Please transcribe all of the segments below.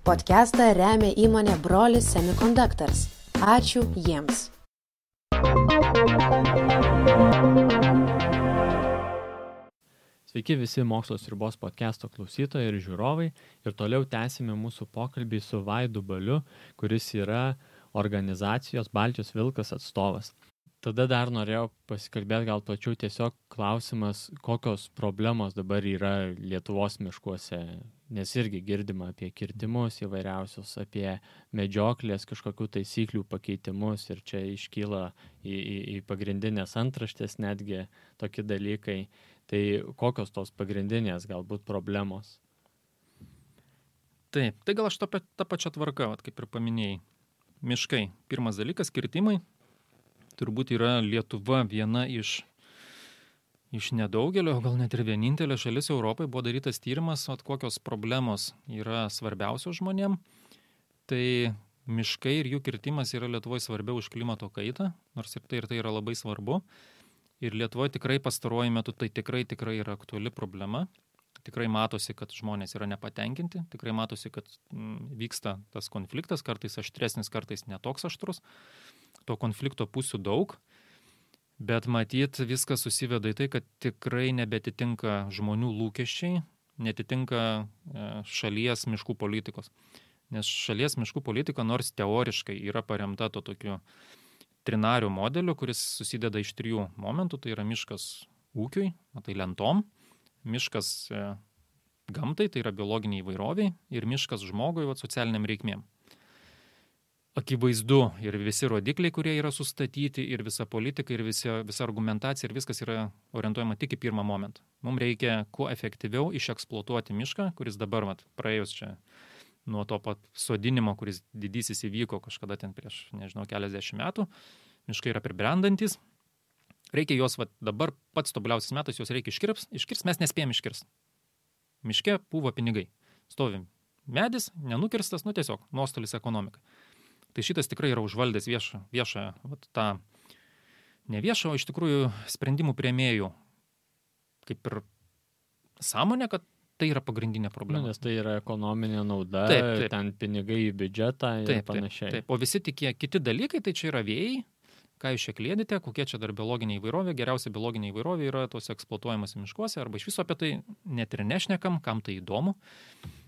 Podcastą remia įmonė Brolis Semiconductors. Ačiū jiems. Sveiki visi Mokslo sriubos podcasto klausytojai ir žiūrovai. Ir toliau tęsime mūsų pokalbį su Vaidu Baliu, kuris yra organizacijos Baltijos Vilkas atstovas. Tada dar norėjau pasikalbėti gal plačiau tiesiog klausimas, kokios problemos dabar yra Lietuvos miškuose, nes irgi girdima apie kirtimus įvairiausius, apie medžioklės kažkokių taisyklių pakeitimus ir čia iškyla į pagrindinės antraštės netgi tokie dalykai. Tai kokios tos pagrindinės galbūt problemos? Taip, tai gal aš tą pačią tvarką, kaip ir paminėjai. Miškai. Pirmas dalykas, kirtimai. Turbūt yra Lietuva viena iš nedaugelio, gal net ir vienintelė šalis Europai buvo darytas tyrimas, kokios problemos yra svarbiausios žmonėm. Tai miškai ir jų kirtimas yra Lietuvoje svarbiau už klimato kaitą, nors ir tai yra labai svarbu. Ir Lietuvoje tikrai pastaruoju metu tai tikrai yra aktuali problema. Tikrai matosi, kad žmonės yra nepatenkinti, tikrai matosi, kad vyksta tas konfliktas, kartais aštresnis, kartais netoks aštrus. To konflikto pusių daug, bet matyt viskas susiveda į tai, kad tikrai nebetitinka žmonių lūkesčiai, netitinka šalies miškų politikos. Nes šalies miškų politika nors teoriškai yra paremta to tokiu trinariu modeliu, kuris susideda iš 3 momentų, tai yra miškas ūkiui, tai lentom, miškas gamtai, tai yra biologiniai įvairoviai ir miškas žmogui, socialiniam reikmėm. Akivaizdu ir visi rodikliai, kurie yra sustatyti, ir visa politika, ir visa argumentacija, ir viskas yra orientuojama tik į pirmą momentą. Mums reikia kuo efektyviau išeksploatuoti mišką, kuris dabar praėjus čia nuo to pat sodinimo, kuris didysis įvyko kažkada ten prieš, keliasdešimt metų. Miškai yra pribrendantis. Reikia juos dabar pats tobuliausias metas, juos reikia iškirst, mes nespėjom iškirst. Miške pūva pinigai. Stovim medis, nenukirstas, tiesiog nuostolis ekonomikai. Tai šitas tikrai yra užvaldęs viešą tą ne viešą, o iš tikrųjų sprendimų priėmėjų kaip ir sąmonė, kad tai yra pagrindinė problema. Nes tai yra ekonominė nauda, taip. Ten pinigai į biudžetą ir panašiai. Taip. O visi kiti dalykai, tai čia yra vėjai, ką jūs čia klėdite, kokie čia dar biologinė įvairovė. Geriausia biologinė įvairovė yra tos eksploatuojamas miškuose, arba iš viso apie tai net ir nešnekam, kam tai įdomu.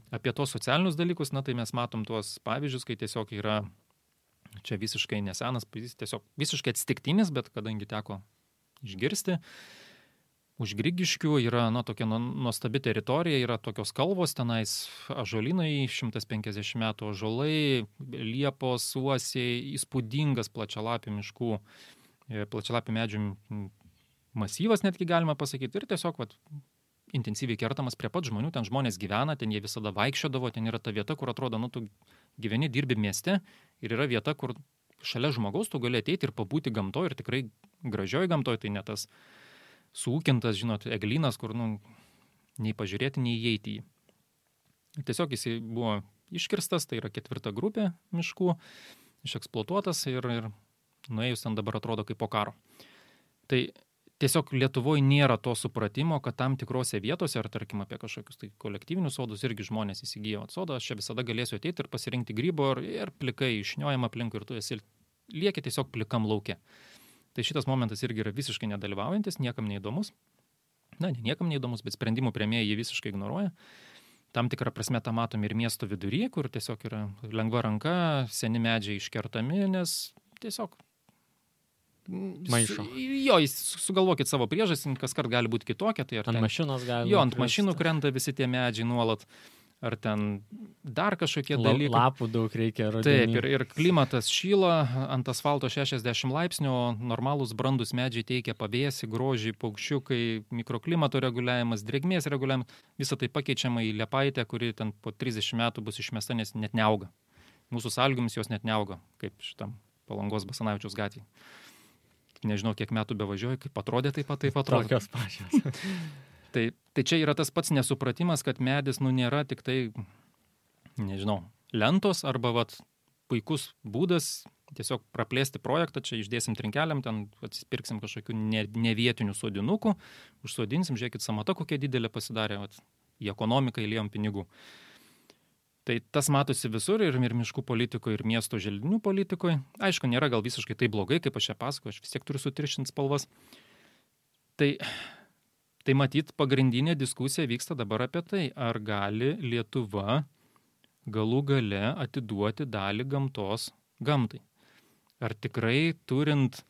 Apie tos socialinius dalykus, tai mes matom tuos pavyzdžius, kai tiesiog yra čia visiškai nesenas, tiesiog visiškai atsitiktinis, bet kadangi teko išgirsti, už Grigiškių yra tokia nuostabi teritorija, yra tokios kalvos, tenais ąžuolynai, 150 metų ąžuolai, liepos, uosiai, įspūdingas plačialapių miškų, plačialapių medžių masyvas netgi galima pasakyti, ir tiesiog intensyviai kertamas prie pat žmonių, ten žmonės gyvena, ten jie visada vaikščiodavo, ten yra ta vieta, kur atrodo, tu gyveni, dirbi mieste ir yra vieta, kur šalia žmogaus tu gali ateiti ir pabūti gamtoje ir tikrai gražioj gamtoje, tai ne tas suūkintas, eglynas, kur nei pažiūrėti, nei įeiti į jį. Tiesiog jis buvo iškirstas, tai yra 4 grupė miškų, išeksploatuotas ir nuėjus ten dabar atrodo kaip po karo. Tai tiesiog Lietuvoje nėra to supratimo, kad tam tikrose vietose, ar tarkim apie kažkokius tai kolektyvinius sodus, irgi žmonės įsigijo sodą, aš čia visada galėsiu ateiti ir pasirinkti grybo ir plikai išniojama aplinkui ir tu lieki tiesiog plikam lauke. Tai šitas momentas irgi yra visiškai nedalyvaujantis, niekam neįdomus. Ne niekam neįdomus, bet sprendimų priėmėjai jį visiškai ignoruoja. Tam tikrą prasme tą matom ir miesto vidury, kur tiesiog yra lengva ranka, seni medžiai iškertami, nes tiesiog maišo. Jūs sugalvokit savo priežastį, kaskart gali būti kitokia. Tai ant mašinos gali. Ant mašinų krenta visi tie medžiai nuolat. Ar ten dar kažkokie dalykai. Lapų daug reikia rudenį. Taip, ir klimatas šyla, ant asfalto 60 laipsnių, normalūs brandus medžiai teikia pavėsį, grožį, paukščiukai, mikroklimato reguliavimas, drėgmės reguliavimas. Visą tai pakeičiama į liepaitę, kuri ten po 30 metų bus išmesta, nes net neauga. Mūsų sąlygomis jos net neauga, kaip šitam Palangos Basanavičiaus gatvėje. Nežinau, kiek metų bevažiuoju, kaip atrodė, taip atrodo. Tokios pačios. Tai čia yra tas pats nesupratimas, kad medis nėra tik tai, lentos arba puikus būdas tiesiog praplėsti projektą, čia išdėsim trinkeliam, ten atsipirksim kažkokių nevietinių sodinukų, užsodinsim, žiūrėkit, samata kokia didelė pasidarė, į ekonomiką įliejom pinigų. Tai tas matosi visur ir miškų politikoje, ir miesto želdinių politikoje. Aišku, nėra gal visiškai tai blogai, kaip aš čia pasakoju, aš vis tiek turiu sutiršinti spalvas. Tai matyt, pagrindinė diskusija vyksta dabar apie tai, ar gali Lietuva galų gale atiduoti dalį gamtos gamtai. Ar tikrai turint,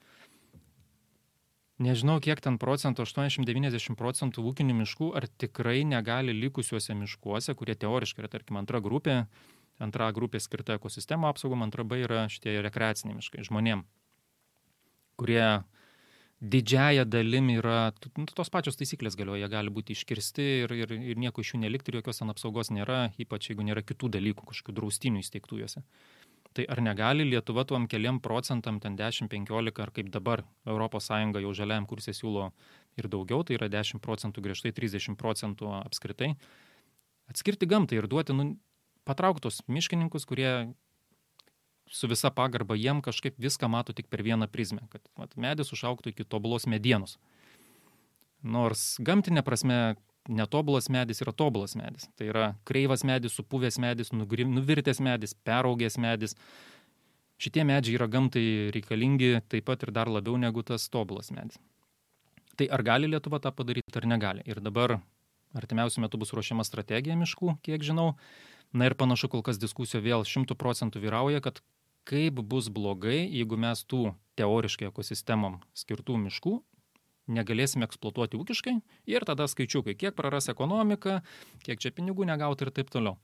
nežinau kiek ten procentų, 80-90 procentų ūkinių miškų, ar tikrai negali likusiuose miškuose, kurie teoriškai yra, tarkim, antra grupė skirta ekosistemų apsaugom, antra B yra šitie rekreaciniai miškai žmonėm, kurie didžiąją dalim yra, tos pačios taisyklės galioja, jie gali būti iškirsti ir nieko iš jų nelikti ir jokios ten apsaugos nėra, ypač jeigu nėra kitų dalykų, kažkokių draustinių įsteigtų juose. Tai ar negali Lietuva tuom keliam procentam, ten 10-15, ar kaip dabar ES jau žaliajam kurse siūlo ir daugiau, tai yra 10 procentų griežtai, 30 procentų apskritai, atskirti gamtai ir duoti patrauktus miškininkus, kurie su visa pagarba jiem kažkaip viską mato tik per vieną prizmę, kad medis užaugtų iki tobulos medienos. Nors gamtinė prasme netobulas medis yra tobulas medis. Tai yra kreivas medis, supuvęs medis, nuvirtęs medis, peraugęs medis. Šitie medžiai yra gamtai reikalingi taip pat ir dar labiau negu tas tobulas medis. Tai ar gali Lietuva tą padaryti, ar negali? Ir dabar artimiausiu metu bus ruošiama strategija miškų, kiek žinau. Na ir panašu, kol kas diskusija vėl 100% vyrauja, kad kaip bus blogai, jeigu mes tų teoriškai ekosistemom skirtų miškų negalėsime eksploatuoti ūkiškai ir tada skaičiukai, kiek praras ekonomika, kiek čia pinigų negauti ir taip toliau.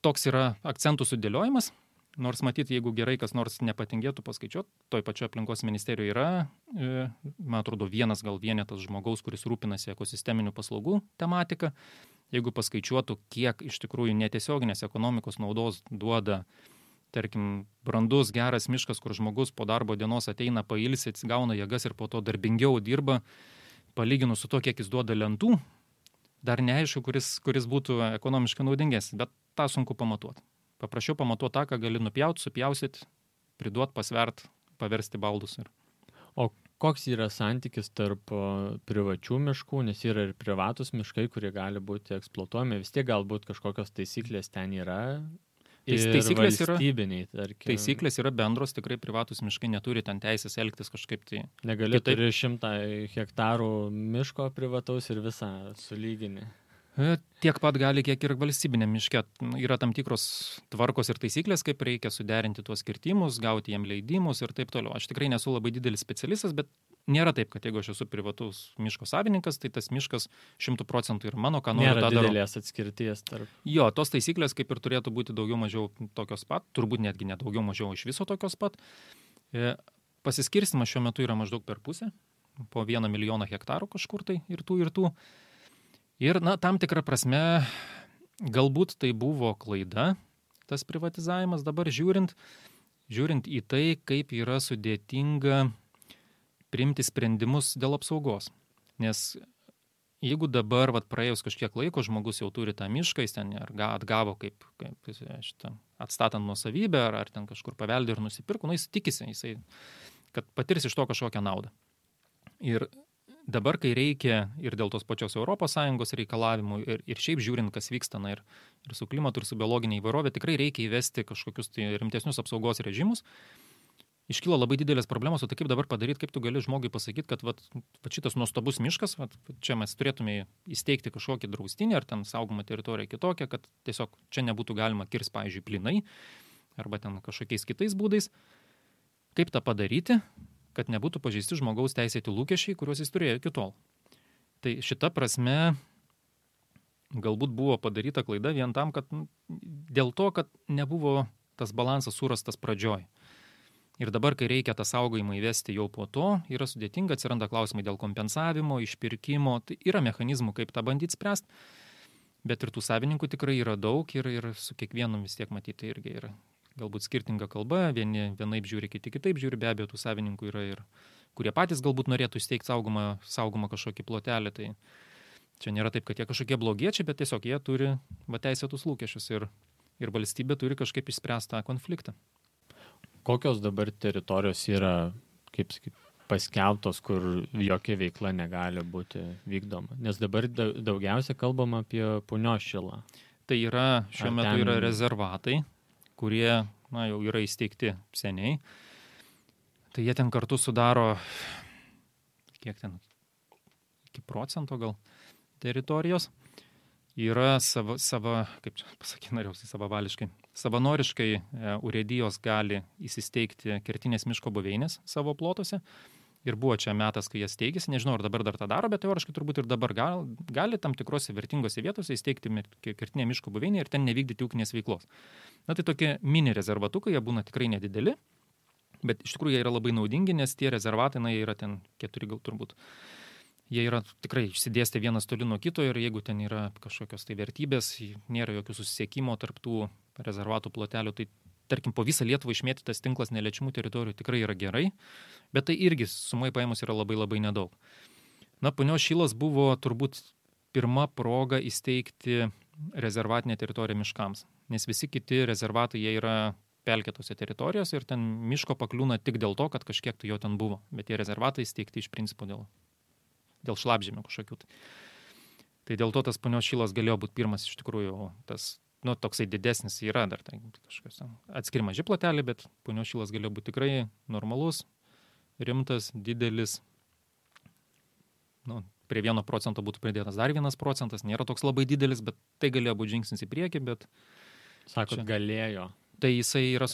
Toks yra akcentų sudėliojimas, nors matyti, jeigu gerai kas nors nepatingėtų paskaičiuoti, toj pačioje aplinkos ministerijoje yra, man atrodo, vienetas žmogaus, kuris rūpinasi ekosisteminių paslaugų tematika. Jeigu paskaičiuotų, kiek iš tikrųjų netiesioginės ekonomikos naudos duoda, tarkim, brandus, geras miškas, kur žmogus po darbo dienos ateina, pailsi, atsigauna jėgas ir po to darbingiau dirba, palyginus su to, kiek jis duoda lentų, dar neaišku, kuris būtų ekonomiškai naudingesnis, bet tą sunku pamatuoti. Paprašiau pamatuoti tą, ką gali nupjauti, supjausit, priduot, pasvert, paversti baldus. O koks yra santykis tarp privačių miškų, nes yra ir privatus miškai, kurie gali būti eksploatuojami, vis tiek galbūt kažkokios taisyklės ten yra? Taisyklės yra bendros, tikrai privatus miškai neturi ten teisės elgtis kažkaip tai. Negali turi 100 hektarų miško privataus ir visą sulyginį. Tiek pat gali, kiek ir valstybinė miške. Yra tam tikros tvarkos ir taisyklės, kaip reikia suderinti tuos kirtimus, gauti jiem leidimus ir taip toliau. Aš tikrai nesu labai didelis specialistas, bet nėra taip, kad jeigu aš esu privatus miško savininkas, tai tas miškas 100% yra mano, ką noriu tą darau. Nėra didelės atskirties tarp. Jo, tos taisyklės kaip ir turėtų būti daugiau mažiau tokios pat, turbūt netgi ne daugiau mažiau iš viso tokios pat. Pasiskirstimas šiuo metu yra maždaug per pusę, po 1 milijoną hektarų kažkur tai ir tų. Ir, tam tikrą prasme, galbūt tai buvo klaida, tas privatizavimas dabar žiūrint į tai, kaip yra sudėtinga priimti sprendimus dėl apsaugos. Nes jeigu dabar, praėjus kažkiek laiko, žmogus jau turi tą mišką, jis ten atgavo kaip atstatant nuosavybę, ar ten kažkur paveldė ir nusipirko, jis tikisi, kad patirs iš to kažkokią naudą. Ir dabar, kai reikia ir dėl tos pačios ES reikalavimų ir šiaip žiūrint, kas vyksta, ir su klimatu, ir su biologinė įvairovė, tikrai reikia įvesti kažkokius tai rimtesnius apsaugos režimus. Iškyla labai didelės problemos, o tai kaip dabar padaryti, kaip tu gali žmogui pasakyti, kad šitas nuostabus miškas, čia mes turėtume įsteigti kažkokį draustinį ar ten saugomą teritoriją kitokią, kad tiesiog čia nebūtų galima kirsti, pavyzdžiui, plynai arba ten kažkokiais kitais būdais. Kaip tą padaryti, kad nebūtų pažeisti žmogaus teisėti lūkesčiai, kuriuos jis turėjo iki tol. Tai šita prasme galbūt buvo padaryta klaida vien tam, kad dėl to, kad nebuvo tas balansas surastas pradžioj. Ir dabar, kai reikia tą saugojimą įvesti jau po to, yra sudėtinga, atsiranda klausimai dėl kompensavimo, išpirkimo, tai yra mechanizmų, kaip tą bandyti spręsti, bet ir tų savininkų tikrai yra daug ir su kiekvienu vis tiek matyti irgi yra galbūt skirtinga kalba, vieni vienaip žiūri, kiti kitaip žiūri, be abejo, tų savininkų yra ir kurie patys galbūt norėtų įsteigti saugomą kažkokį plotelį, tai čia nėra taip, kad jie kažkokie blogiečiai, bet tiesiog jie turi teisėtus lūkesčius ir valstybė turi kažkaip išspręsti tą konfliktą. Kokios dabar teritorijos yra, kaip sakyti, paskelbtos, kur jokia veikla negali būti vykdoma? Nes dabar daugiausia kalbama apie Punios Šilą. Tai yra, šiuo metu yra rezervatai, kurie jau yra įsteigti seniai. Tai jie ten kartu sudaro, kiek ten, iki procento gal teritorijos. Yra kaip čia pasakyti, norėjausi savavališkai, savanoriškai urėdijos gali įsisteigti kertinės miško buveinės savo plotuose. Ir buvo čia metas, kai jas steigėsi, nežinau, ar dabar dar tą daro, bet teoriškai turbūt ir dabar gali tam tikrose vertingose vietose įsteigti kertinę miško buveinę ir ten nevykdyti ūkinės veiklos. Tai tokie mini rezervatukai, jie būna tikrai nedideli, bet iš tikrųjų jie yra labai naudingi, nes tie rezervatai, jie yra ten 4 gal turbūt. Jie yra tikrai išsidėstę vienas toli nuo kito ir jeigu ten yra kažkokios tai vertybės, nėra jokių susisiekimo tarp tų rezervatų plotelių, tai tarkim, po visą Lietuvą išmėtytas tinklas neliečiamų teritorijų tikrai yra gerai, bet tai irgi sumai paėmus yra labai labai nedaug. Punios Šilas buvo turbūt pirma proga įsteigti rezervatinę teritoriją miškams, nes visi kiti rezervatai jie yra pelkėtose teritorijose ir ten miško pakliūna tik dėl to, kad kažkiek tai jo ten buvo, bet tie rezervatai įsteigti iš principo dėl šlapžemių kažkokių. Tai dėl to tas Punios Šilas galėjo būti pirmas iš tikrųjų tas toksai didesnis yra dar tai kažkas atskiri maži plotelį, bet Punios Šilas galėjo būti tikrai normalus, rimtas, didelis. Prie 1% būtų pridėtas dar 1%, nėra toks labai didelis, bet tai galėjo būti žingsnis į priekį, bet... Sakot, galėjo. Tai jisai yra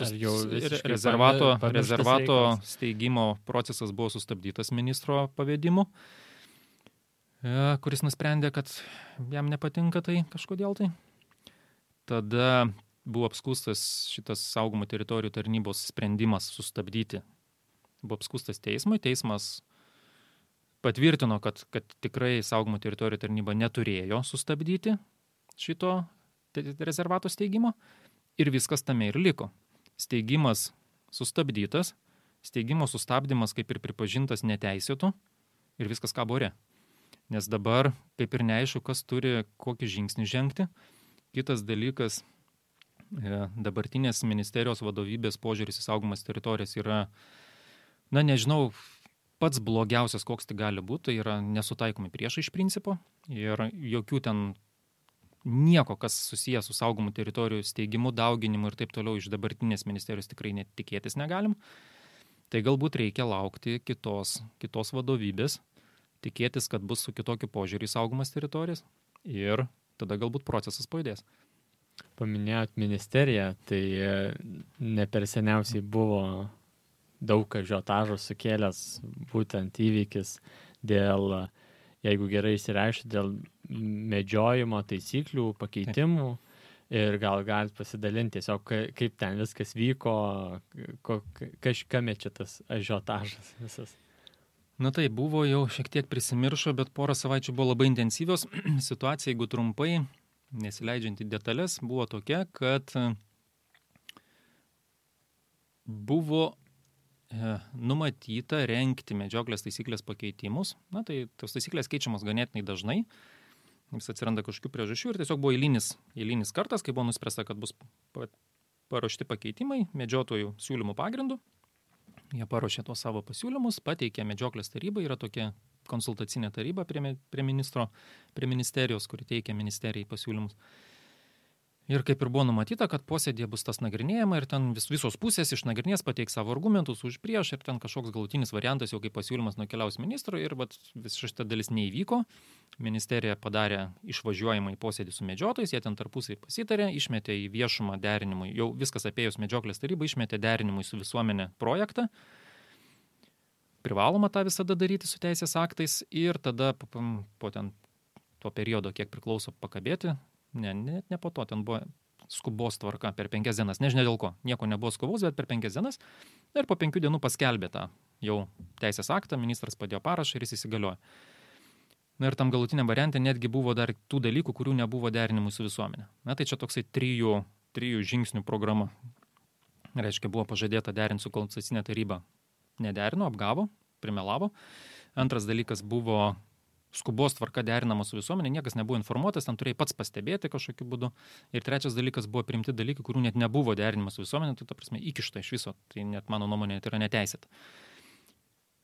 rezervato steigimo procesas buvo sustabdytas ministro pavedimu, kuris nusprendė, kad jam nepatinka tai kažkodėl tai. Tada buvo apskųstas šitas saugomų teritorijų tarnybos sprendimas sustabdyti. Buvo apskųstas teismui. Teismas patvirtino, kad tikrai saugomų teritorijų tarnyba neturėjo sustabdyti šito rezervato steigimo ir viskas tame ir liko. Steigimas sustabdytas, steigimo sustabdymas kaip ir pripažintas neteisėtu ir viskas kabo ore. Nes dabar kaip ir neaišku, kas turi kokį žingsnį žengti. Kitas dalykas, dabartinės ministerijos vadovybės požiūris į saugomas teritorijas yra, nežinau, pats blogiausias, koks tai gali būti, tai yra nesutaikomi priešai iš principo ir jokių ten nieko, kas susijęs su saugomų teritorijų steigimu, dauginimu ir taip toliau iš dabartinės ministerijos tikrai netikėtis negalim. Tai galbūt reikia laukti kitos vadovybės, tikėtis, kad bus su kitokiu požiūriu į saugomas teritorijas ir tada galbūt procesas pajudės. Paminėjot ministeriją, tai ne per seniausiai buvo daug ažiotažo sukėlęs būtent įvykis dėl, jeigu gerai išsireiškia, dėl medžiojimo taisyklių pakeitimų. Ir gal galit pasidalinti tiesiog, kaip ten viskas vyko, kame čia tas ažiotažas visas. Tai buvo jau šiek tiek prisimiršo, bet porą savaičių buvo labai intensyvios. Situacija, jeigu trumpai, nesileidžiant į detalės, buvo tokia, kad buvo numatyta rengti medžioklės taisyklės pakeitimus. Tai tos taisyklės keičiamos ganėtinai dažnai. Vis atsiranda kažkokių priežasčių ir tiesiog buvo eilinis kartas, kai buvo nuspręsta, kad bus paruošti pakeitimai medžiotojų siūlymų pagrindų. Jie paruošė tuos savo pasiūlymus, pateikė medžioklės taryba, yra tokia konsultacinė taryba prie ministerijos, kuri teikia ministerijai pasiūlymus. Ir kaip ir buvo numatyta, kad posėdėje bus tas nagrinėjama ir ten visos pusės išnagrinės, pateiks savo argumentus už prieš ir ten kažkoks galutinis variantas jau kaip pasiūlymas nukeliaus ministrui ir visa šita dalis neįvyko. Ministerija padarė išvažiuojimą į posėdį su medžiotojais, jie ten tarpusai pasitarė, išmetė į viešumą derinimui, jau viskas apėjus medžioklės tarybą, išmetė derinimui su visuomenė projektą. Privaloma tą visada daryti su teisės aktais ir tada po ten to periodo, kiek priklauso pakabėti, ne po to, ten buvo skubos tvarka per 5 dienas, nežinia dėl ko, nieko nebuvo skubos, bet per 5 dienas ir po 5 dienų paskelbė tą jau teisės aktą, ministras padėjo parašą ir jis įsigaliojo. Ir tam galutiniam variante netgi buvo dar tų dalykų, kurių nebuvo derinimui su visuomenė. Tai čia toksai 3 žingsnių programa. Reiškia, buvo pažadėta derinti su konsultacinė taryba. Nederino, apgavo, primelavo. Antras dalykas buvo skubos tvarka derinama su visuomenė, niekas nebuvo informuotas, ten turėjai pats pastebėti kažkokiu būdu. Ir trečias dalykas buvo priimti dalykai, kurių net nebuvo derinimas su visuomenė, tai ta prasme įkišta iš viso, tai net mano nuomonė tai yra neteisėta.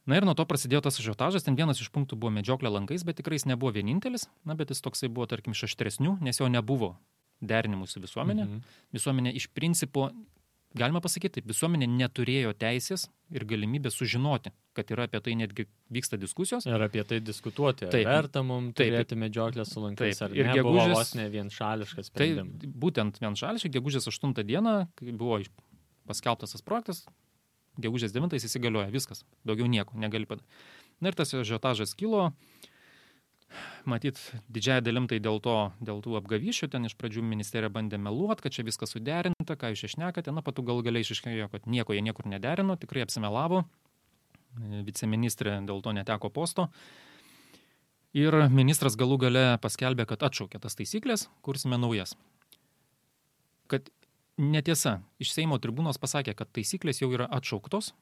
Ir nuo to prasidėjo tas ažiotažas, ten vienas iš punktų buvo medžioklė lankais, bet tikrai jis nebuvo vienintelis, bet jis toksai buvo, tarkim, iš aštresnių, nes jo nebuvo derinimu su visuomenė. Visuomenė iš principo, galima pasakyti, taip, visuomenė neturėjo teisės ir galimybę sužinoti, kad yra apie tai netgi vyksta diskusijos. Ir apie tai diskutuoti. Taip. Verta mums turėti medžioklę su lankais, ar Ir ne, buvo gegužės- vos ne vienšališkas Tai sprendimas. būtent vienšališkai, gegužės 8 dieną, kai buvo paskelbtas tas projektas, gegužės 9 įsigalioja viskas, daugiau nieko negali padaryti. Na ir tas ažiotažas kilo, matyt, didžiąją dalim tai dėl tų apgavyšių, ten iš pradžių ministerija bandė meluoti, kad čia viskas suderinta, ką jūs išnekate, na, patų gal galiai išaiškėjo, kad nieko jie niekur nederino, tikrai apsimelavo, viceministrė dėl to neteko posto. Ir ministras galų gale paskelbė, kad atšaukė tas taisyklės, kursime naujas. Kad netiesa, iš Seimo tribūnos pasakė, kad taisyklės jau yra atšauktos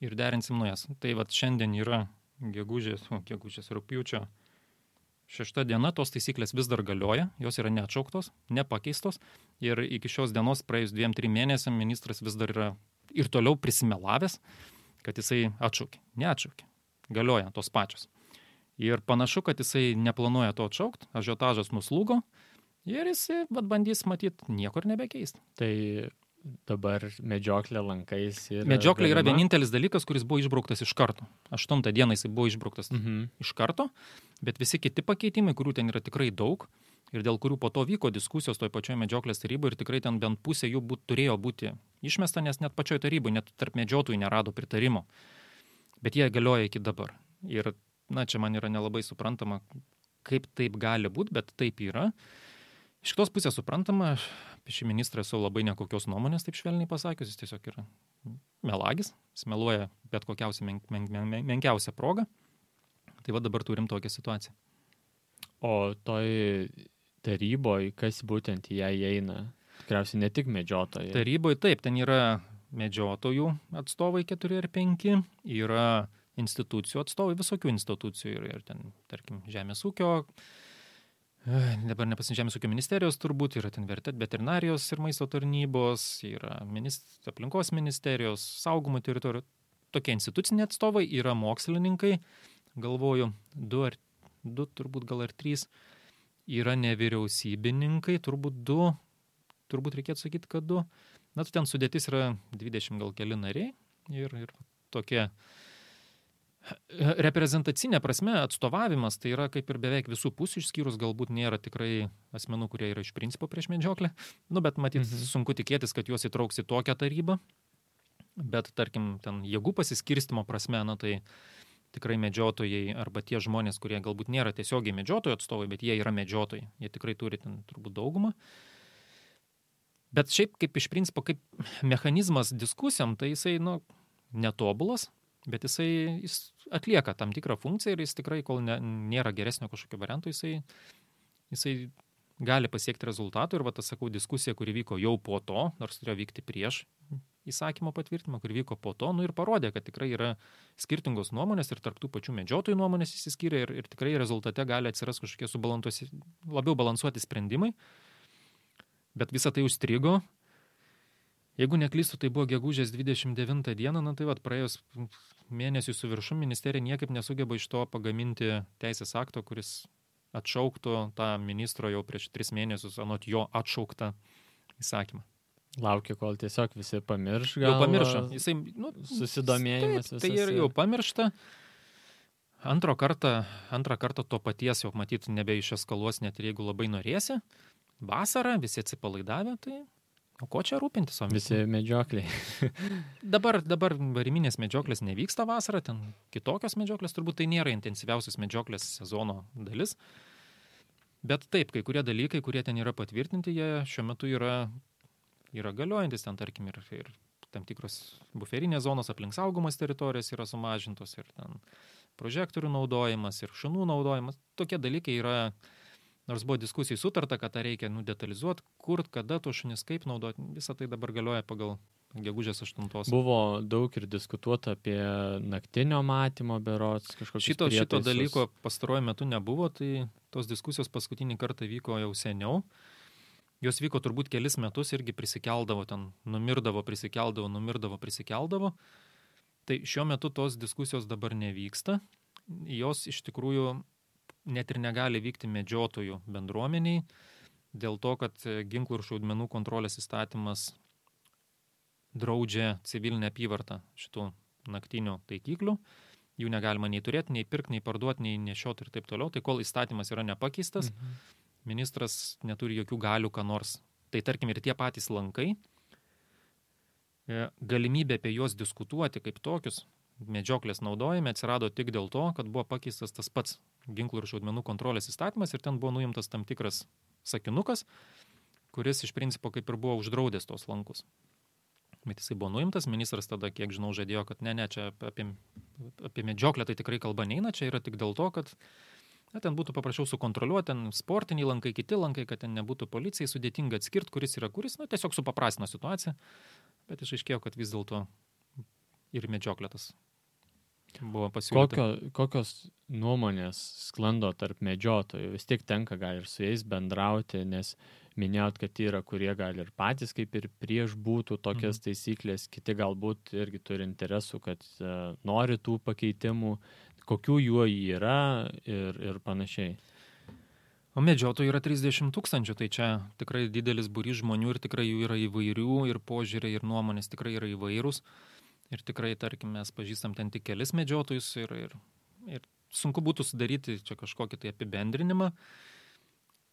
ir derinsim naujas. Tai vat šiandien yra gegužės rugpjūčio 6 diena, tos taisyklės vis dar galioja, jos yra neatšauktos, nepakeistos ir iki šios dienos praėjus 2-3 mėnesiam ministras vis dar yra ir toliau prisimelavęs, kad jisai atšaukė. Neatšaukė. Galioja tos pačios. Ir panašu, kad jisai neplanuoja to atšaukti, ažiotažas nuslūgo ir jisai bandys matyti niekur nebekeisti. Tai dabar medžioklė lankais ir... Medžioklė yra vienintelis dalykas, kuris buvo išbrauktas iš karto. 8 dieną jisai buvo išbrauktas iš karto, bet visi kiti pakeitimai, kurių ten yra tikrai daug ir dėl kurių po to vyko diskusijos toj pačioj medžioklės taryboje ir tikrai ten bent pusė jų turėjo būti išmesta, nes net pačioj taryboje, net tarp medžiotojų nerado pritarimo. Bet jie galioja iki dabar. Ir, na, čia man yra nelabai suprantama, kaip taip gali būti, bet taip yra. Iš kitos pusės suprantama, apie šį ministrą esu labai nekokios nuomonės, taip švelniai pasakius, jis tiesiog yra melagis, jis meluoja bet kokiausią menkiausią progą. Tai va dabar turim tokią situaciją. O toj taryboje, kas būtent į ją įeina? Tikriausiai ne tik medžiotojai. Taryboje taip, ten yra medžiotojų atstovai 4 ar 5, yra institucijų atstovai, visokių institucijų ir ten, tarkim, žemės ūkio, dabar žemės ūkio ministerijos turbūt, yra ten veterinarijos ir maisto tarnybos, yra aplinkos ministerijos, saugumo teritorijų, tokie instituciniai atstovai, yra mokslininkai, galvoju, 2 turbūt gal ar 3, yra nevyriausybininkai, turbūt 2, turbūt reikėtų sakyti, kad 2, na, ten sudėtis yra 20 gal keli nariai ir tokie reprezentacinė prasme atstovavimas, tai yra kaip ir beveik visų pusių, išskyrus galbūt nėra tikrai asmenų, kurie yra iš principo prieš medžioklę, nu, bet matyt, sunku tikėtis, kad juos įtrauks į tokią tarybą, bet tarkim, ten jėgų pasiskirstimo prasme, na, tai tikrai medžiotojai arba tie žmonės, kurie galbūt nėra tiesiogiai medžiotojų atstovai, bet jie yra medžiotojai, jie tikrai turi ten turbūt daugumą. Bet šiaip kaip iš principo, kaip mechanizmas diskusijom, tai jisai, nu, netobulas, bet jis atlieka tam tikrą funkciją ir jis tikrai, kol nėra geresnio kažkokio varianto, jisai gali pasiekti rezultatų. Ir va, tas, sakau, diskusija, kuri vyko jau po to, nors turėjo vykti prieš įsakymo patvirtinimą, kuri vyko po to, nu ir parodė, kad tikrai yra skirtingos nuomonės ir tarp tų pačių medžiotojų nuomonės išsiskyrė ir tikrai rezultate gali atsiras kažkokie labiau balansuoti sprendimai. Bet visa tai užstrigo. Jeigu neklystu, tai buvo gegužės 29 dieną, na tai vat, praėjus mėnesių su viršum ministerija niekaip nesugeba iš to pagaminti teisės akto, kuris atšauktų tą ministro jau prieš 3 mėnesius anot jo atšauktą įsakymą. Laukia, kol tiesiog visi pamirš. Jau pamiršo. Jisai, nu, susidomėjimas visas. Tai ir jau pamiršta. Antrą kartą to paties jau matyti nebeišeskaluos, net ir jeigu labai norėsi. Vasarą visi atsipalaidavę, tai o ko čia rūpintis? Visi medžiokliai. Dabar variminės medžioklės nevyksta vasarą, ten kitokios medžioklės, turbūt tai nėra intensyviausias medžioklės sezono dalis. Bet taip, kai kurie dalykai, kurie ten yra patvirtinti, jie šiuo metu yra galiojantis, ten tarkim ir tam tikros buferinės zonos aplink saugomas teritorijas yra sumažintos ir ten prožektorių naudojimas ir šunų naudojimas. Tokie dalykai yra, nors buvo diskusijai sutarta, kad tą reikia detalizuoti, kur, kada to šunis kaip naudoti, visą tai dabar galioja pagal gegužės 8. Buvo daug ir diskutuota apie naktinio matymo berods kažkokius prietaisus. Šito dalyko pastaruoju metu nebuvo, tai tos diskusijos paskutinį kartą vyko jau seniau. Jos vyko turbūt kelis metus, irgi prisikeldavo, ten numirdavo, prisikeldavo. Tai šiuo metu tos diskusijos dabar nevyksta. Jos iš tikrųjų net ir negali vykti medžiotojų bendruomeniai, dėl to, kad ginklų ir šaudmenų kontrolės įstatymas draudžia civilinę apyvartą šitų naktinių taikiklių. Jų negalima nei turėti, nei pirkti, nei parduoti, nei nešioti ir taip toliau. Tai kol įstatymas yra nepakeistas, ministras neturi jokių galių, ką nors. Tai tarkim ir tie patys lankai, galimybė apie juos diskutuoti kaip tokius medžioklės naudojime atsirado tik dėl to, kad buvo pakeistas tas pats ginklų ir šaudmenų kontrolės įstatymas ir ten buvo nuimtas tam tikras sakinukas, kuris iš principo kaip ir buvo uždraudęs tos lankus. Bet jisai buvo nuimtas, ministras tada, kiek žinau, žadėjo, kad ne, čia apie medžioklę tai tikrai kalba neina, čia yra tik dėl to, kad ten būtų paprašiau sukontroliuoti, ten sportiniai lankai, kiti lankai, kad ten nebūtų policijai sudėtinga atskirti, kuris yra kuris, tiesiog supaprastino situaciją, bet išaiškėjo, kad vis dėlto ir medžioklė tas buvo pasiūlyta. Kokios nuomonės sklando tarp medžiotojų? Vis tiek tenka gal ir su jais bendrauti, nes minėjot, kad yra, kurie gali ir patys kaip ir prieš būtų tokias taisyklės, kiti galbūt irgi turi interesų, kad nori tų pakeitimų, kokių jų yra ir panašiai. O medžiotojų yra 30 000, tai čia tikrai didelis būrys žmonių ir tikrai jų yra įvairių ir požiūriai ir nuomonės tikrai yra įvairūs. Ir tikrai, tarkim, mes pažįstam ten tik kelis medžiotojus ir sunku būtų sudaryti čia kažkokį tai apibendrinimą.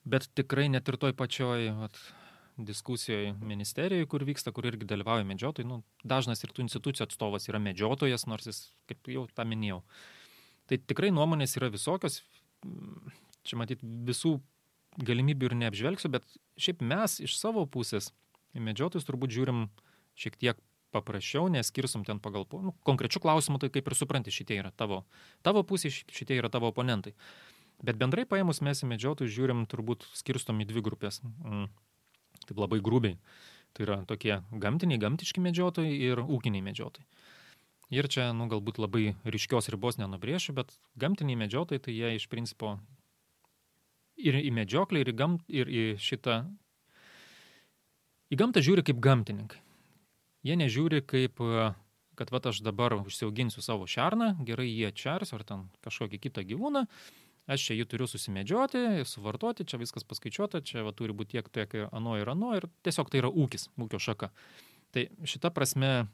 Bet tikrai net ir toj pačioj diskusijoje ministerijoje, kur vyksta, kur irgi dalyvauja medžiotojai, dažnas ir tų institucijų atstovas yra medžiotojas, nors jis, kaip jau tą minėjau. Tai tikrai nuomonės yra visokios, čia matyt visų galimybių ir neapžvelgsiu, bet šiaip mes iš savo pusės į medžiotojus turbūt žiūrim šiek tiek paprasčiau, neskirsim ten pagal konkrečių klausimų, tai kaip ir supranti, šitie yra tavo pusė, šitie yra tavo oponentai. Bet bendrai paėmus mes į medžiotojus žiūrim, turbūt skirstom į dvi grupės. Taip labai grubiai. Tai yra tokie gamtiški medžiotojai ir ūkiniai medžiotojai. Ir čia, galbūt labai ryškios ribos nenubrėšiu, bet gamtiniai medžiotojai, tai jie iš principo ir į medžioklę, ir į šitą... Į gamtą žiūri kaip gamtininkai. Jie nežiūri kaip, kad aš dabar užsiauginsiu savo šerną, gerai jį atšers ar ten kažkokį kitą gyvūną, aš čia jį turiu susimedžioti, suvartoti, čia viskas paskaičiuota, čia turi būti tiek ano ir tiesiog tai yra ūkis, ūkio šaka. Tai šita prasme,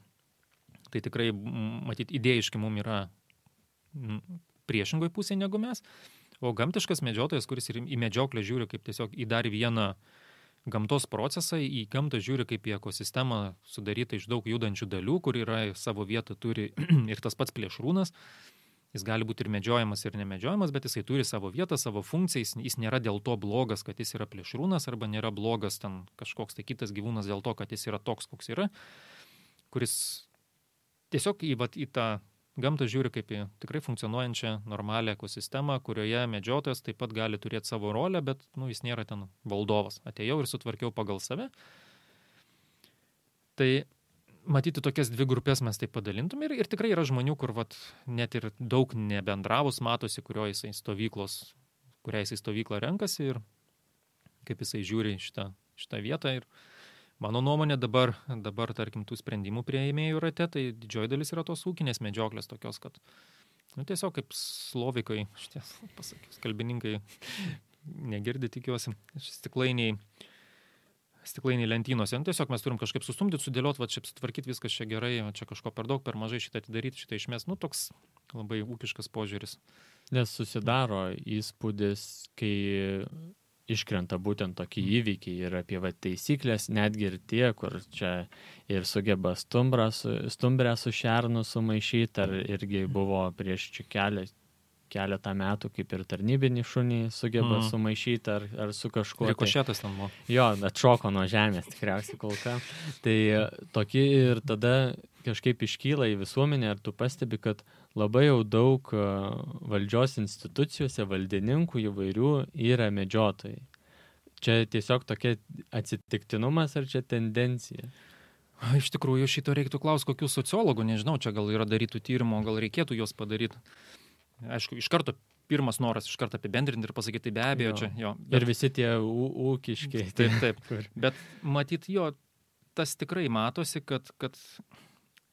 tai tikrai, matyt, idėjiškai mums yra priešingoj pusėje negu mes, o gamtiškas medžiotojas, kuris ir į medžioklę žiūri kaip tiesiog į dar vieną gamtos procesą, į gamtą žiūri kaip į ekosistemą sudarytą iš daug judančių dalių, kur yra savo vietą turi ir tas pats plėšrūnas. Jis gali būti ir medžiojamas, ir nemedžiojamas, bet jisai turi savo vietą, savo funkciją, jis nėra dėl to blogas, kad jis yra plėšrūnas, arba nėra blogas ten kažkoks tai kitas gyvūnas dėl to, kad jis yra toks, koks yra, kuris tiesiog į tą gamtą žiūri kaip į tikrai funkcionuojančią normalią ekosistemą, kurioje medžiotojas taip pat gali turėti savo rolę, bet jis nėra ten valdovas. Atėjau ir sutvarkiau pagal save. Tai matyti tokias dvi grupės mes taip padalintum ir tikrai yra žmonių, kur net ir daug nebendravus matosi, kuriai jisai stovyklą renkasi ir kaip jisai žiūri šitą vietą. Ir mano nuomonė dabar, tarkim, tų sprendimų priėmėjų rate, tai didžioji dalis yra tos ūkinės medžioklės tokios, kad tiesiog kaip slovikai, šitie pasakius, kalbininkai negirdi, tikiuosi, stiklainiai lentynose. Tiesiog mes turim kažkaip sustumdyti, sudėlioti, čia sutvarkyti viskas čia gerai, čia kažko per daug, per mažai šitą atidaryti, šitą išmest. Toks labai ūkiškas požiūris. Nes susidaro įspūdis, kai iškrenta būtent tokie įvykiai ir apie taisyklės, netgi ir tie, kur čia ir sugeba stumbrę su šernu sumaišyti, ar irgi buvo prieš čia keletą metų, kaip ir tarnybinį šunį sugeba sumaišyti ar su kažkuo. Rikošetas ten buvo. Jo, atšoko nuo žemės tikriausiai kol ką. Tai tokie ir tada kažkaip iškyla į visuomenę, ar tu pastebi, kad labai jau daug valdžios institucijose, valdininkų įvairių yra medžiotojai. Čia tiesiog tokia atsitiktinumas ar čia tendencija? Iš tikrųjų, šito reiktų klausti kokių sociologų, nežinau, čia gal yra darytų tyrimų, gal reikėtų juos padaryti. Aišku, iš karto pirmas noras iš karto apibendrinti ir pasakyti, tai be abejo čia. Jo, bet... Ir visi tie ūkiški. Taip. Bet matyt, tas tikrai matosi, kad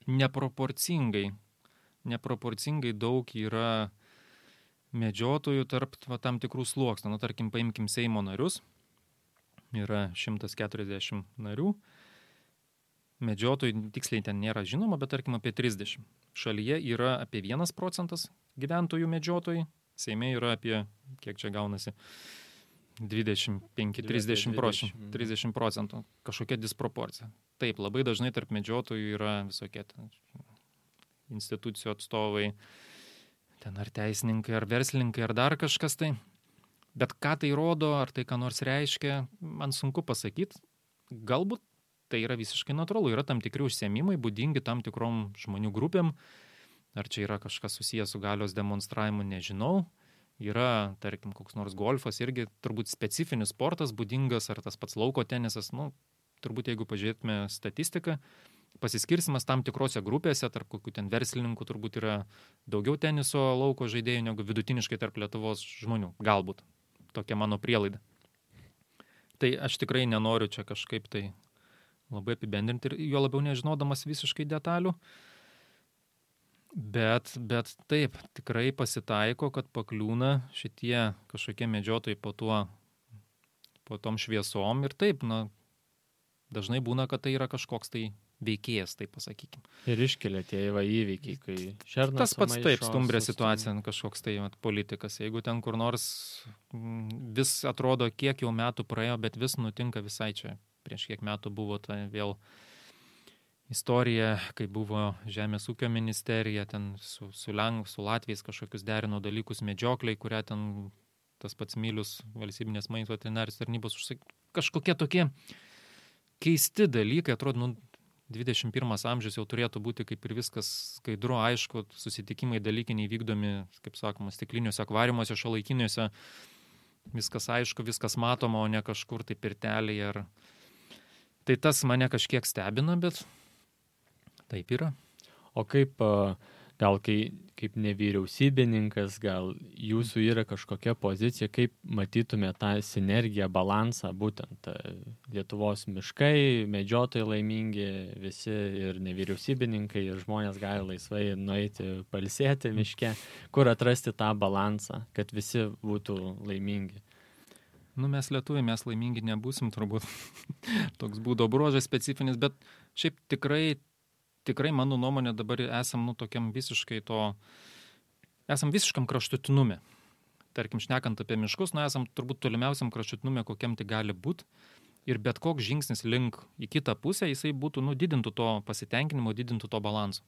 neproporcingai daug yra medžiotojų tarp tam tikrų sluoksnių. Tarkim, paimkim Seimo narius. yra 140 narių. Medžiotojų tiksliai ten nėra žinoma, bet tarkim apie 30. Šalyje yra apie 1% gyventojų medžiotojai, Seime yra apie, kiek čia gaunasi, 25-30 procentų, kažkokia disproporcija. Taip, labai dažnai tarp medžiotojų yra visokie institucijų atstovai, ten ar teisininkai, ar verslininkai, ar dar kažkas tai. Bet ką tai rodo, ar tai ką nors reiškia, man sunku pasakyti. Galbūt tai yra visiškai natūralu. Yra tam tikri užsiėmimai, būdingi tam tikrom žmonių grupėm. Ar čia yra kažkas susijęs su galios demonstravimu, nežinau. Yra, tarkim, koks nors golfas, irgi turbūt specifinis sportas būdingas, ar tas pats lauko tenisas. Turbūt jeigu pažiūrėtume statistiką, pasiskirsimas tam tikrose grupėse, tarp kokių ten verslininkų turbūt yra daugiau teniso lauko žaidėjų negu vidutiniškai tarp Lietuvos žmonių. Galbūt. Tokia mano prielaida. Tai aš tikrai nenoriu čia kažkaip tai labai apibendrinti ir jo labiau nežinodamas visiškai detalių. Bet taip, tikrai pasitaiko, kad pakliūna šitie kažkokie medžiotojai po tom šviesom ir taip, dažnai būna, kad tai yra kažkoks tai veikėjas, taip pasakykim. Ir iškelia tie įvykiai, kai šernas tas pats taip, stumbrė situacija, kažkoks tai politikas. Jeigu ten kur nors vis atrodo, kiek jau metų praėjo, bet vis nutinka visai čia. Prieš kiek metų buvo ta vėl istorija, kai buvo Žemės ūkio ministerija, ten su Latviais kažkokius derino dalykus medžiokliai, kurią ten tas pats Milius, valstybinės maisto veterinarijos tarnybos kažkokie tokie keisti dalykai, atrodo, 21 amžius jau turėtų būti kaip ir viskas skaidru, aišku, susitikimai dalykiniai vykdomi, kaip sakoma, stikliniuose akvariumuose, šiuolaikiniuose, viskas aišku, viskas matoma, o ne kažkur tai pirtelėje. Tai tas mane kažkiek stebina, bet taip yra. O kaip kaip nevyriausybininkas, gal jūsų yra kažkokia pozicija, kaip matytume tą sinergiją, balansą, būtent Lietuvos miškai, medžiotojai laimingi, visi ir nevyriausybininkai, ir žmonės gali laisvai nueiti pailsėti miške, kur atrasti tą balansą, kad visi būtų laimingi. Mes lietuviai, mes laimingi nebūsim, turbūt toks būdo bruožas specifinis, bet šiaip tikrai mano nuomonė dabar esam tokiam esam visiškam kraštutinume. Tarkim, šnekant apie miškus, esam turbūt tolimiausiam kraštutinume, kokiam tai gali būti. Ir bet koks žingsnis link į kitą pusę, jisai būtų, didintų to pasitenkinimo, didintų to balanso.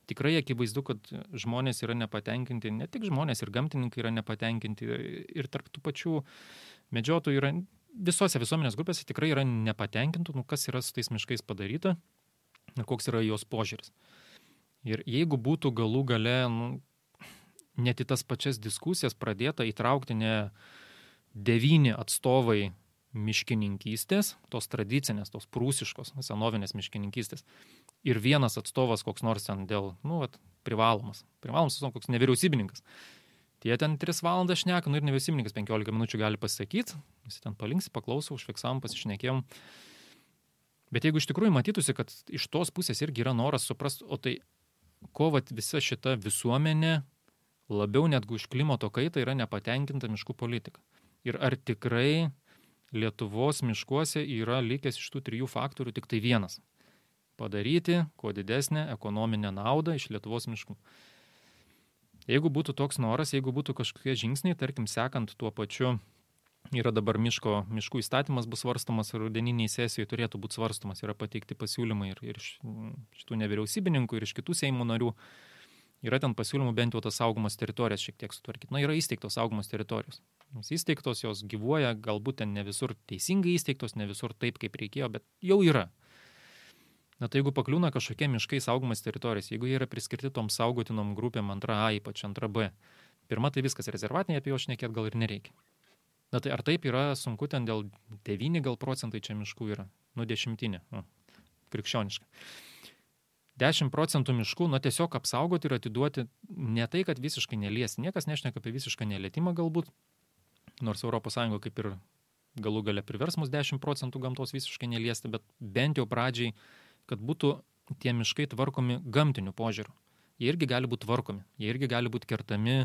Tikrai akivaizdu, kad žmonės yra nepatenkinti, ne tik žmonės, ir gamtininkai yra nepatenkinti, ir tarp tų pačių medžiotojų yra, visose visuomenės grupėse tikrai yra nepatenkintų, kas yra su tais miškais padaryta. Ir koks yra jos požiūris. Ir jeigu būtų galų gale net į tas pačias diskusijas pradėta įtraukti ne 9 atstovai miškininkystės, tos tradicinės, tos prūsiškos, senovinės miškininkystės, ir vienas atstovas koks nors ten dėl, privalomas, koks nevyriausybininkas. Tie ten 3 valandas šneka, ir nevyriausybininkas 15 minučių gali pasakyti, visi ten palinksi, paklausau, užfiksavom, pasišnekėjom. Bet jeigu iš tikrųjų matytųsi, kad iš tos pusės irgi yra noras suprasti, o tai ko visa šita visuomenė labiau netgi už klimato kaitą yra nepatenkinta miškų politika. Ir ar tikrai Lietuvos miškuose yra likęs iš tų 3 faktorių tik tai vienas. Padaryti kuo didesnę ekonominę naudą iš Lietuvos miškų. Jeigu būtų toks noras, jeigu būtų kažkokie žingsniai, tarkim, sekant tuo pačiu, yra dabar miškų įstatymas bus svarstomas, rudeniniai sesijoje turėtų būti svarstomas, yra pateikti pasiūlymai ir iš šitų nevyriausybininkų, ir iš kitų Seimo narių. Yra ten pasiūlymų bent jau tas saugomos teritorijas šiek tiek sutvarkyti. Yra įsteigtos saugomos teritorijos. Jos įsteigtos, jos gyvuoja, galbūt ten ne visur teisingai įsteigtos, ne visur taip, kaip reikėjo, bet jau yra. Tai jeigu pakliūna kažkokie miškai saugomas teritorijos, jeigu jie yra priskirti tom saugotinom grupėm 2A, ypač 2B, pirma tai viskas rezervatiniai, apie jo šnekėt gal ir nereikia. Tai ar taip yra sunku, ten dėl 9 gal procentai čia miškų yra, 10, krikščioniškai. 10% miškų, tiesiog apsaugoti ir atiduoti ne tai, kad visiškai neliesti. Niekas nešneka apie visišką nelietimą galbūt, nors ES kaip ir galų gale privers mus 10% gamtos visiškai neliesti, bet bent jau pradžiai, kad būtų tie miškai tvarkomi gamtiniu požiūriu. Jie irgi gali būti tvarkomi, jie irgi gali būti kertami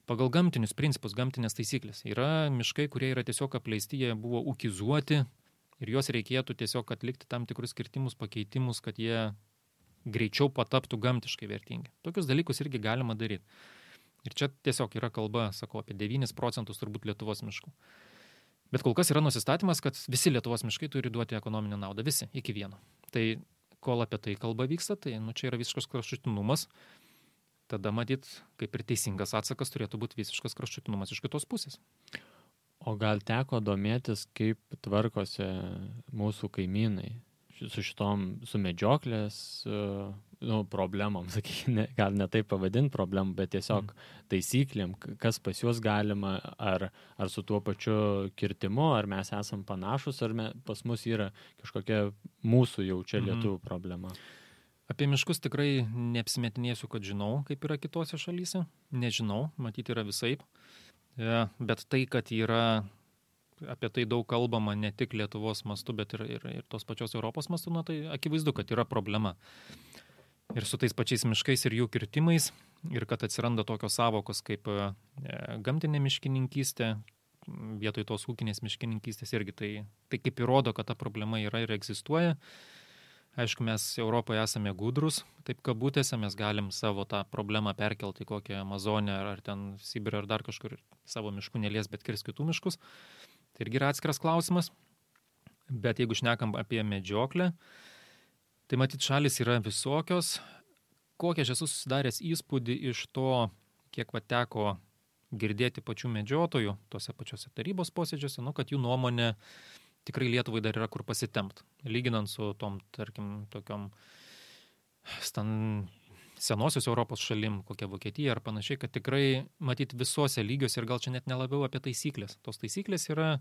pagal gamtinius principus, gamtinės taisyklės. Yra miškai, kurie yra tiesiog apleisti, jie buvo ūkizuoti ir juos reikėtų tiesiog atlikti tam tikrus kirtimus, pakeitimus, kad jie greičiau pataptų gamtiškai vertingi. Tokius dalykus irgi galima daryti. Ir čia tiesiog yra kalba, sakau, apie 9% turbūt Lietuvos miškų. Bet kol kas yra nusistatymas, kad visi Lietuvos miškai turi duoti ekonominę naudą, visi, iki vieno. Tai kol apie tai kalba vyksta, tai čia yra visiškas kraštutinumas. Tada matyt, kaip ir teisingas atsakas turėtų būti visiškas kraštutinumas iš kitos pusės. O gal teko domėtis, kaip tvarkosi mūsų kaimynai su šitom medžioklės problemom, sakykime, gal ne taip pavadinti problemom, bet tiesiog taisyklėm, kas pas juos galima, ar su tuo pačiu kirtimu, ar mes esam panašus, ar pas mus yra kažkokia mūsų jau čia lietuvių problema. Apie miškus tikrai neapsimetinėsiu, kad žinau, kaip yra kitose šalyse. Nežinau, matyti yra visaip. Bet tai, kad yra apie tai daug kalbama ne tik Lietuvos mastu, bet ir tos pačios Europos mastu, tai akivaizdu, kad yra problema. Ir su tais pačiais miškais ir jų kirtimais, ir kad atsiranda tokios savokos kaip gamtinė miškininkystė, vietoj tos ūkinės miškininkystės irgi tai kaip įrodo, kad ta problema yra ir egzistuoja. Aišku, mes Europoje esame gudrus, taip kabutėse, mes galim savo tą problemą perkelti į kokią Amazonę ar ten Sibirą ar dar kažkur savo miškų nelies, bet kirs kitų miškus. Tai irgi yra atskiras klausimas. Bet jeigu šnekam apie medžioklę, tai matyt šalis yra visokios. Kokią aš esu susidaręs įspūdį iš to, kiek teko girdėti pačių medžiotojų tose pačiose tarybos posėdžiuose, kad jų nuomonė tikrai Lietuvai dar yra kur pasitempt. Lyginant su tom, tarkim, tokiom senosios Europos šalim, kokia Vokietija ar panašiai, kad tikrai matyti visose lygiuose ir gal čia net nelabiau apie taisyklės. Tos taisyklės yra,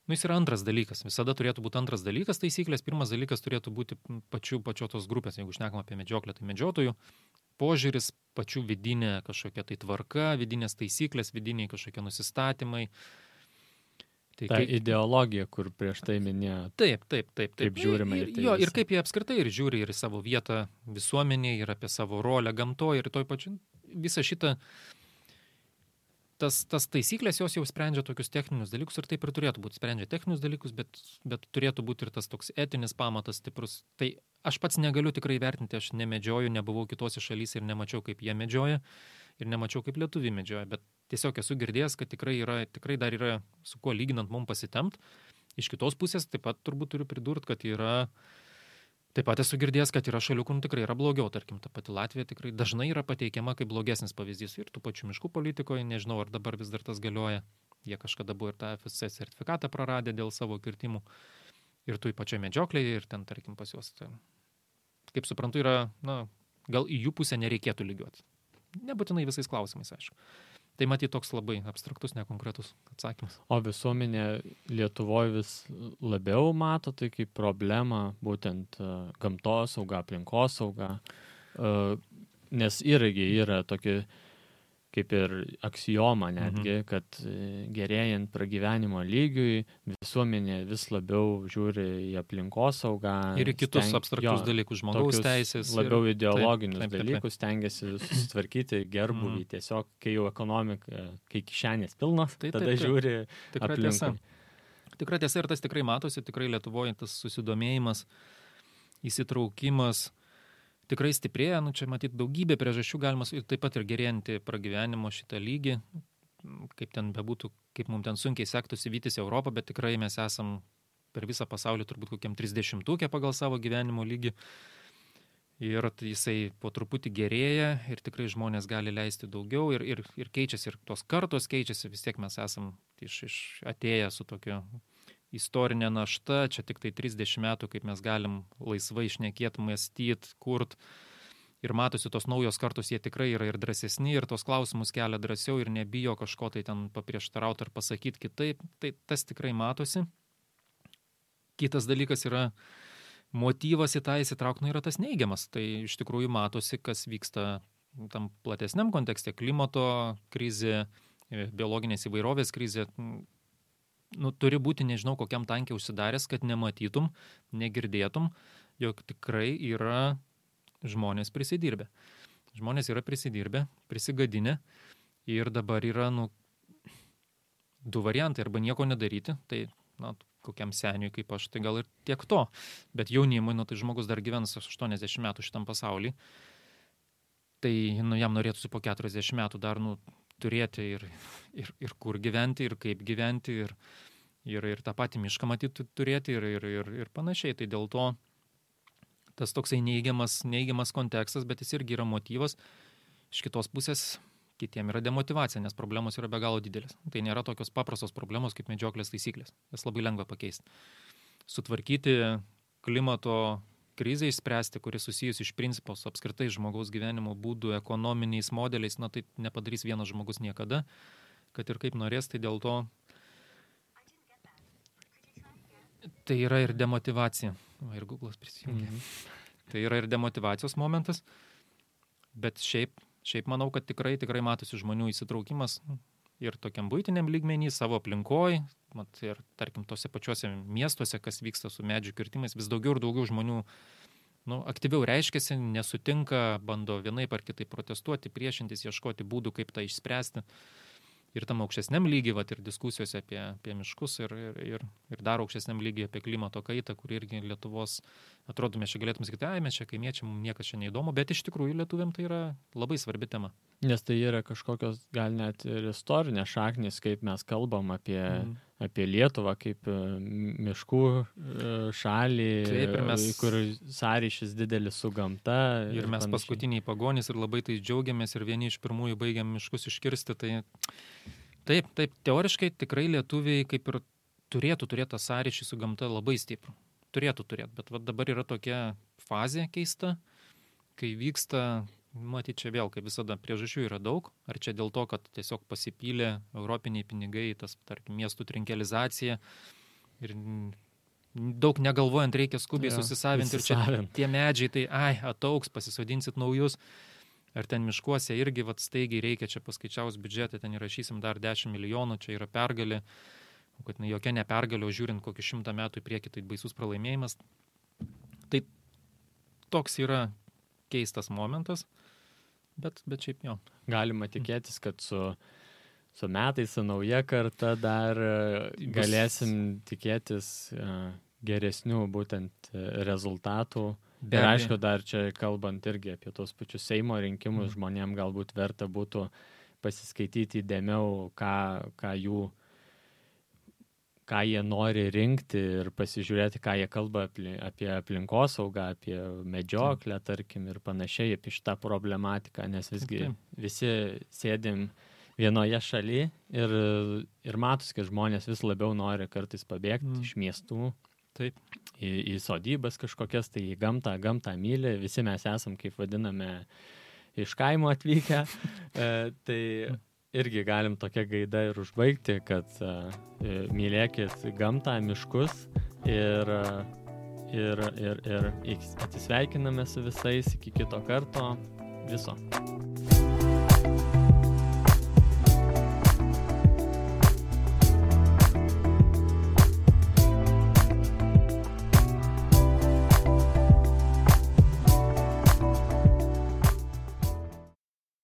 jis yra antras dalykas. Visada turėtų būti antras dalykas taisyklės. Pirmas dalykas turėtų būti pačios tos grupės. Jeigu šnekam apie medžioklę, tai medžiotojų požiūris, pačių vidinė kažkokia tai tvarka, vidinės taisyklės, vidiniai kažkokie nusistatymai. Ta ideologija, kur prieš tai minėjo. Taip. Kaip žiūrima į tai. Jo, ir kaip jie apskritai ir žiūri ir į savo vietą visuomenėje, ir apie savo rolę gamtoje, ir toj pačiu visą šitą, tas taisyklės jos jau sprendžia tokius techninius dalykus, ir taip ir turėtų būti. Sprendžia techninius dalykus, bet turėtų būti ir tas toks etinis pamatas stiprus. Tai aš pats negaliu tikrai vertinti, aš nemedžioju, nebuvau kitose šalyse ir nemačiau, kaip jie medžioja. Ir nemačiau, kaip lietuviai medžioja, bet tiesiog esu girdėjęs, kad tikrai dar yra su kuo lyginant mums pasitempt. Iš kitos pusės taip pat turbūt turiu pridurti, kad taip pat esu girdėjęs, kad yra šalių, kur tikrai yra blogiau. Tarkim, ta pati Latvija tikrai dažnai yra pateikiama kaip blogesnis pavyzdys. Ir tų pačių miškų politikoje, nežinau, ar dabar vis dar tas galioja. Jie kažkada buvo ir tą FSC sertifikatą praradę dėl savo kirtimų. Ir tų pačioje medžioklėje, ir ten, tarkim, pas juos. Kaip suprantu, yra, gal į jų pusę nereikėtų lygiuoti. Nebūtinai visais klausimais, aišku. Tai matyti toks labai abstraktus, nekonkretus atsakymas. O visuomenė Lietuvoje vis labiau mato tai kaip problemą, būtent gamtosauga, aplinkosauga, nes irgi yra tokia kaip ir aksioma netgi, kad gerėjant pragyvenimo lygiui visuomenė vis labiau žiūri į aplinkosaugą. Ir į kitus abstraktus dalykus, žmogaus teisės. Labiau ideologinius dalykus stengiasi susitvarkyti gerbuvį. Tiesiog, kai jau ekonomika, kai kišenės pilnos, tada žiūri aplinkui. Tikra tiesa ir tas tikrai matosi, tikrai Lietuvoje tas susidomėjimas, įsitraukimas tikrai stiprėja, čia matyti daugybė priežasčių galima, taip pat ir gerėjantį pragyvenimo šitą lygį, kaip ten bebūtų, kaip mums ten sunkiai sektųsi vytis Europą, bet tikrai mes esam per visą pasaulį turbūt kokiam 30-ukė pagal savo gyvenimo lygį. Ir jisai po truputį gerėja ir tikrai žmonės gali leisti daugiau ir keičiasi, ir tos kartos keičiasi, vis tiek mes esam atėję su tokiu istorinė našta, čia tik tai 30 metų, kaip mes galim laisvai šnekėti, mąstyti, kurt. Ir matosi tos naujos kartos, jie tikrai yra ir drąsesni, ir tos klausimus kelia drąsiau ir nebijo kažko tai ten paprieštarauti ar pasakyti kitaip. Tai tas tikrai matosi. Kitas dalykas yra motyvas į tą įsitraukti, yra tas neigiamas. Tai iš tikrųjų matosi, kas vyksta tam platesniam kontekste. Klimato krizė, biologinės įvairovės krizė. Turi būti, nežinau, kokiam tankiai užsidaręs, kad nematytum, negirdėtum, jog tikrai yra žmonės prisidirbę. Žmonės yra prisidirbę, prisigadinę Ir dabar yra, du variantai, arba nieko nedaryti, tai, kokiam seniui kaip aš, tai gal ir tiek to. Bet jaunimui, tai žmogus dar gyvens 80 metų šitam pasauly, tai jam norėtųsi po 40 metų dar turėti ir kur gyventi, ir kaip gyventi, ir tą patį mišką matyti turėti, ir panašiai. Tai dėl to tas toksai neigiamas kontekstas, bet jis irgi yra motyvas. Iš kitos pusės kitiem yra demotyvacija, nes problemos yra be galo didelės. Tai nėra tokios paprastos problemos kaip medžioklės taisyklės. Jas labai lengva pakeisti. Sutvarkyti klimato krizę išspręsti, kuris susijus iš principo su apskritai žmogaus gyvenimo būdų, ekonominiais modeliais, tai nepadarys vienas žmogus niekada, kad ir kaip norės, tai dėl to tai yra ir demotyvacija. Ir Google'as prisijungia. Tai yra ir demotyvacijos momentas, bet šiaip manau, kad tikrai matosi žmonių įsitraukimas ir tokiam buitiniam lygmenį, savo aplinkoj, ir tarkim tose pačiuose miestuose, kas vyksta su medžių kirtimais, vis daugiau ir daugiau žmonių aktyviau reiškiasi, nesutinka, bando vienaip ar kitaip protestuoti, priešintis, ieškoti būdų, kaip tą išspręsti. Ir tam aukštesniam lygiai, ir diskusijose apie miškus, ir dar aukštesniam lygiai apie klimato kaitą, kur irgi Lietuvos, atrodo, mes čia galėtume sakyti, mes čia kaimiečiai, mums niekas čia neįdomu, bet iš tikrųjų lietuviam tai yra labai svarbi tema. Nes tai yra kažkokios gal net ir istorinės šaknys, kaip mes kalbam apie Lietuvą, kaip miškų šalį, kur sąryšis didelis su gamta. Ir mes paskutiniai pagonys ir labai tai džiaugiamės ir vieni iš pirmųjų baigiam miškus iškirsti. Tai taip, teoriškai tikrai lietuviai kaip ir turėtų turėti tą sąryšį su gamta labai stiprų. Turėtų turėti, bet dabar yra tokia fazė keista, kai vyksta... Matyt, čia vėl, kaip visada, priežasčių yra daug. Ar čia dėl to, kad tiesiog pasipylė europiniai pinigai, tas, tarkim, miestų trinkelizacija ir daug negalvojant reikia skubiai susisavinti ir čia tie medžiai, tai ataugs, pasisodinsit naujus. Ar ten miškuose irgi staigiai reikia, čia paskaičiaus biudžetą, ten įrašysim dar 10 milijonų, čia yra pergalė, kad jokia ne pergalė, o žiūrint kokį 100 metų į priekį, tai baisus pralaimėjimas. Tai toks yra keistas momentas, bet šiaip jo. Galima tikėtis, kad su metais, su nauja karta dar galėsim tikėtis geresnių būtent rezultatų. Ir aišku, dar čia kalbant irgi apie tos pačius Seimo rinkimus, žmonėm galbūt verta būtų pasiskaityti įdėmiau, ką jie nori rinkti ir pasižiūrėti, ką jie kalba apie aplinkosaugą, apie medžioklę, tarkim, ir panašiai, apie šitą problematiką, nes visgi visi sėdim vienoje šalyje ir matus, kad žmonės vis labiau nori kartais pabėgti iš miestų, į sodybas kažkokias, tai į gamtą myli, visi mes esam, kaip vadiname, iš kaimo atvykę, tai... Irgi galim tokią gaidą ir užbaigti, kad mylėkit gamtą, miškus ir atsisveikiname su visais iki kito karto. Viso.